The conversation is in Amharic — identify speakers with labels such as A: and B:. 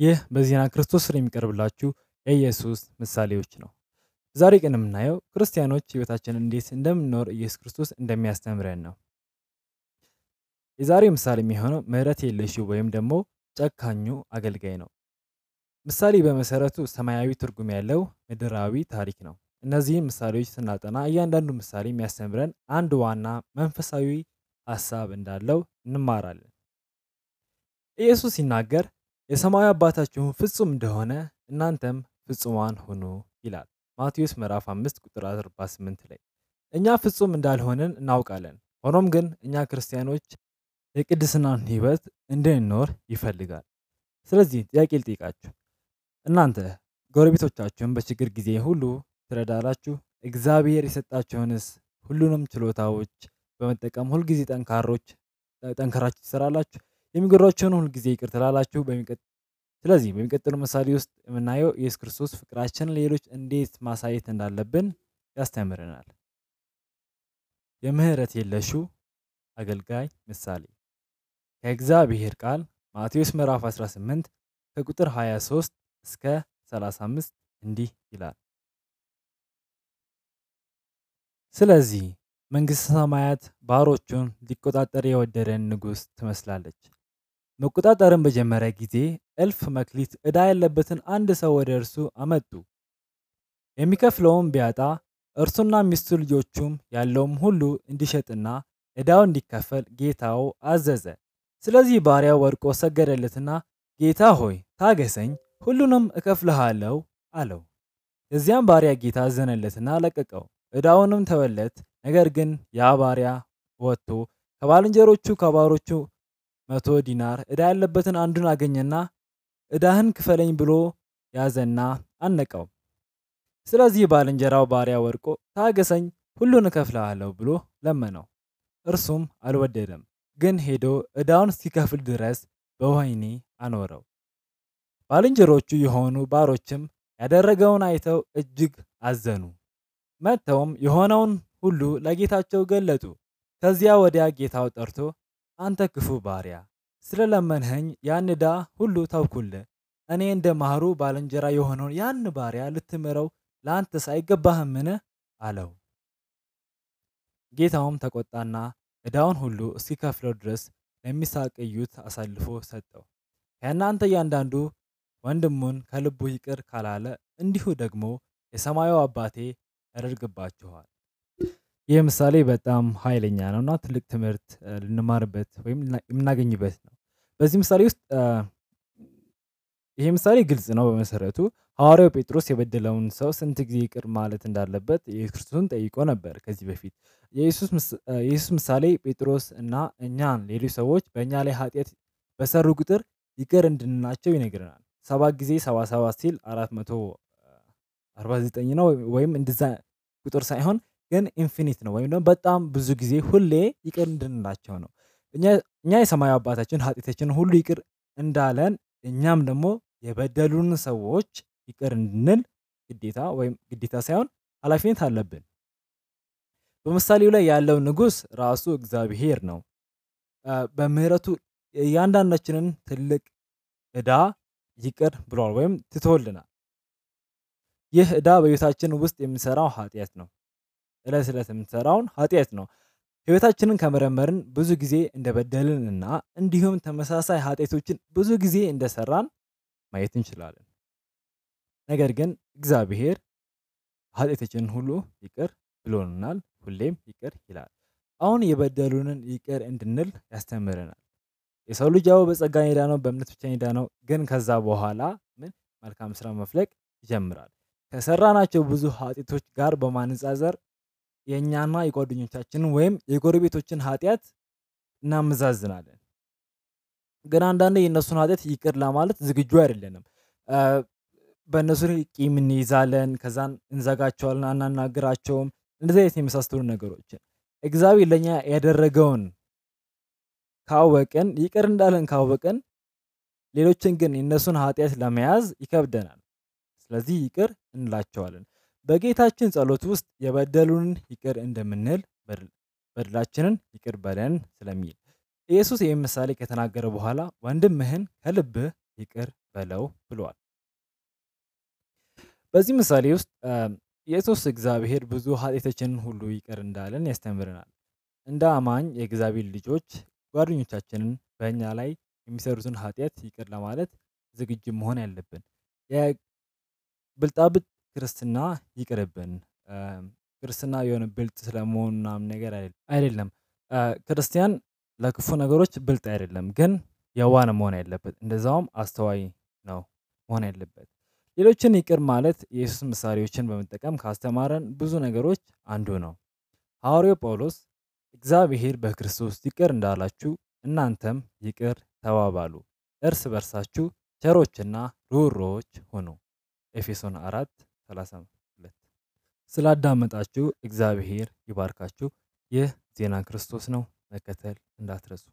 A: ይህ በዜና ክርስቶስ ስር የሚቀርብላችሁ የኢየሱስ ምሳሌዎች ነው። ዛሬ ቀን የምናየው ክርስቲያኖች ህይወታችንን እንዴት እንደምንኖር ኢየሱስ ክርስቶስ እንደሚያስተምረን ነው። የዛሬ ምሳሌ የሚሆነው ምህረት የለሽው ወይም ደግሞ ጨካኙ አገልጋይ ነው። ምሳሌ በመሰረቱ ሰማያዊ ትርጉም ያለው ምድራዊ ታሪክ ነው። እነዚህም ምሳሌዎች ስናጠና እያንዳንዱ ምሳሌ የሚያስተምረን አንድ ዋና መንፈሳዊ ሀሳብ እንዳለው እንማራለን። ኢየሱስ ሲናገር የሰማያዊ አባታችሁ ፍጹም እንደሆነ እናንተም ፍጹማን ሁኑ ይላል። ማቴዎስ ምዕራፍ 5 ቁጥር 48 ላይ እኛ ፍጹም እንዳልሆንን እናውቃለን። ሆኖም ግን እኛ ክርስቲያኖች የቅድስናን ህይወት እንድንኖር ይፈልጋል። ስለዚህ ጥያቄ ልጠይቃችሁ። እናንተ ጎረቤቶቻችሁን በችግር ጊዜ ሁሉ ትረዳላችሁ? እግዚአብሔር የሰጣችሁንስ ሁሉንም ችሎታዎች በመጠቀም ሁልጊዜ ጠንካራችሁ ትሰራላችሁ? የሚጎድላችሁን ሁልጊዜ ይቅር ትላላችሁ? ስለዚህ በሚቀጥለው ምሳሌ ውስጥ የምናየው ኢየሱስ ክርስቶስ ፍቅራችንን ሌሎች እንዴት ማሳየት እንዳለብን ያስተምረናል። የምህረት የለሹ አገልጋይ ምሳሌ ከእግዚአብሔር ቃል ማቴዎስ ምዕራፍ 18 ከቁጥር 23 እስከ 35 እንዲህ ይላል። ስለዚህ መንግሥተ ሰማያት ባሮቹን ሊቆጣጠር የወደደን ንጉሥ ትመስላለች። መቆጣጠርን በጀመረ ጊዜ እልፍ መክሊት ዕዳ ያለበትን አንድ ሰው ወደ እርሱ አመጡ። የሚከፍለውም ቢያጣ እርሱና ሚስቱ ልጆቹም ያለውም ሁሉ እንዲሸጥና ዕዳው እንዲከፈል ጌታው አዘዘ። ስለዚህ ባሪያው ወድቆ ሰገደለትና ጌታ ሆይ ታገሰኝ፣ ሁሉንም እከፍልሃለሁ አለው። የዚያም ባሪያ ጌታ አዘነለትና ለቀቀው፣ ዕዳውንም ተወለት። ነገር ግን ያ ባሪያ ወጥቶ ከባልንጀሮቹ ከባሮቹ 100 ዲናር ዕዳ ያለበትን አንዱን አገኘና ዕዳህን ክፈለኝ ብሎ ያዘና አነቀው። ስለዚህ ባልንጀራው ባሪያ ወድቆ ታገሰኝ፣ ሁሉን እከፍልሃለሁ ብሎ ለመነው። እርሱም አልወደደም፣ ግን ሄዶ ዕዳውን እስኪከፍል ድረስ በወህኒ አኖረው። ባልንጀሮቹ የሆኑ ባሮችም ያደረገውን አይተው እጅግ አዘኑ። መጥተውም የሆነውን ሁሉ ለጌታቸው ገለጡ። ከዚያ ወዲያ ጌታው ጠርቶ አንተ ክፉ ባሪያ፣ ስለለመንኸኝ ያን ዕዳ ሁሉ ተውኩልህ። እኔ እንደ ማሩ ባልንጀራ የሆነውን ያን ባሪያ ልትምረው ለአንተስ አይገባህምን? አለው። ጌታውም ተቆጣና ዕዳውን ሁሉ እስኪከፍለው ድረስ ለሚሳቅዩት አሳልፎ ሰጠው። ከእናንተ እያንዳንዱ ወንድሙን ከልቡ ይቅር ካላለ እንዲሁ ደግሞ የሰማዩ አባቴ ያደርግባችኋል። ይህ ምሳሌ በጣም ኃይለኛ ነው እና ትልቅ ትምህርት ልንማርበት ወይም የምናገኝበት ነው። በዚህ ምሳሌ ውስጥ ይሄ ምሳሌ ግልጽ ነው። በመሰረቱ ሐዋርያው ጴጥሮስ የበደለውን ሰው ስንት ጊዜ ይቅር ማለት እንዳለበት ኢየሱስ ክርስቶስን ጠይቆ ነበር ከዚህ በፊት። የኢየሱስ ምሳሌ ጴጥሮስ እና እኛን ሌሎች ሰዎች በእኛ ላይ ኃጢአት በሰሩ ቁጥር ይቅር እንድንላቸው ይነግረናል። 7 ጊዜ 77 ሲል 449 ነው ወይም እንደዛ ቁጥር ሳይሆን ግን ኢንፊኒት ነው ወይም ደግሞ በጣም ብዙ ጊዜ ሁሌ ይቅር እንድንላቸው ነው። እኛ የሰማያዊ አባታችን ኃጢአታችንን ሁሉ ይቅር እንዳለን እኛም ደግሞ የበደሉን ሰዎች ይቅር እንድንል ግዴታ ሳይሆን ኃላፊነት አለብን። በምሳሌው ላይ ያለው ንጉሥ ራሱ እግዚአብሔር ነው። በምህረቱ እያንዳንዳችንን ትልቅ ዕዳ ይቅር ብሏል ወይም ትቶልናል። ይህ ዕዳ በሕይወታችን ውስጥ የምንሰራው ኃጢአት ነው። ዕለት ዕለት የምንሰራውን ኃጢአት ነው። ሕይወታችንን ከመረመርን ብዙ ጊዜ እንደበደልን እና እንዲሁም ተመሳሳይ ኃጢአቶችን ብዙ ጊዜ እንደሰራን ማየት እንችላለን። ነገር ግን እግዚአብሔር ኃጢአታችንን ሁሉ ይቅር ብሎናል፣ ሁሌም ይቅር ይላል። አሁን የበደሉንን ይቅር እንድንል ያስተምረናል። የሰው ልጅ ያው በጸጋ የዳነው በእምነት ብቻ የዳነው፣ ግን ከዛ በኋላ መልካም ስራ መፍለቅ ይጀምራል። ከሰራናቸው ብዙ ኃጢአቶች ጋር በማነጻጸር የእኛና የጓደኞቻችንን ወይም የጎረቤቶችን ኃጢአት እናመዛዝናለን። ግን አንዳንዴ የእነሱን ኃጢአት ይቅር ለማለት ዝግጁ አይደለንም። በእነሱ ቂም እንይዛለን፣ ከዛን እንዘጋቸዋለን፣ አናናግራቸውም። እንደዚህ አይነት የመሳሰሉ ነገሮችን እግዚአብሔር ለእኛ ያደረገውን ካወቅን ይቅር እንዳለን ካወቅን ሌሎችን ግን የእነሱን ኃጢአት ለመያዝ ይከብደናል። ስለዚህ ይቅር እንላቸዋለን። በጌታችን ጸሎት ውስጥ የበደሉንን ይቅር እንደምንል በደላችንን ይቅር በለን ስለሚል ኢየሱስ ይህን ምሳሌ ከተናገረ በኋላ ወንድምህን ከልብህ ይቅር በለው ብሏል። በዚህ ምሳሌ ውስጥ ኢየሱስ እግዚአብሔር ብዙ ኃጢአታችንን ሁሉ ይቅር እንዳለን ያስተምረናል። እንደ አማኝ የእግዚአብሔር ልጆች ጓደኞቻችንን በእኛ ላይ የሚሰሩትን ኃጢአት ይቅር ለማለት ዝግጁ መሆን ያለብን። የብልጣብልጥ ክርስትና ይቅርብን። ክርስትና የሆነ ብልጥ ስለመሆን ምናምን ነገር አይደለም። ክርስቲያን ለክፉ ነገሮች ብልጥ አይደለም፣ ግን የዋህ ነው መሆን ያለበት። እንደዛውም አስተዋይ ነው መሆን ያለበት። ሌሎችን ይቅር ማለት የኢየሱስ ምሳሌዎችን በመጠቀም ካስተማረን ብዙ ነገሮች አንዱ ነው። ሐዋርያው ጳውሎስ እግዚአብሔር በክርስቶስ ይቅር እንዳላችሁ እናንተም ይቅር ተባባሉ፣ እርስ በርሳችሁ ቸሮችና ርኅሩኆች ሁኑ። ኤፌሶን 4:32። ስላዳመጣችሁ እግዚአብሔር ይባርካችሁ። ይህ ዜና ክርስቶስ ነው። መከተል እንዳትረሱ።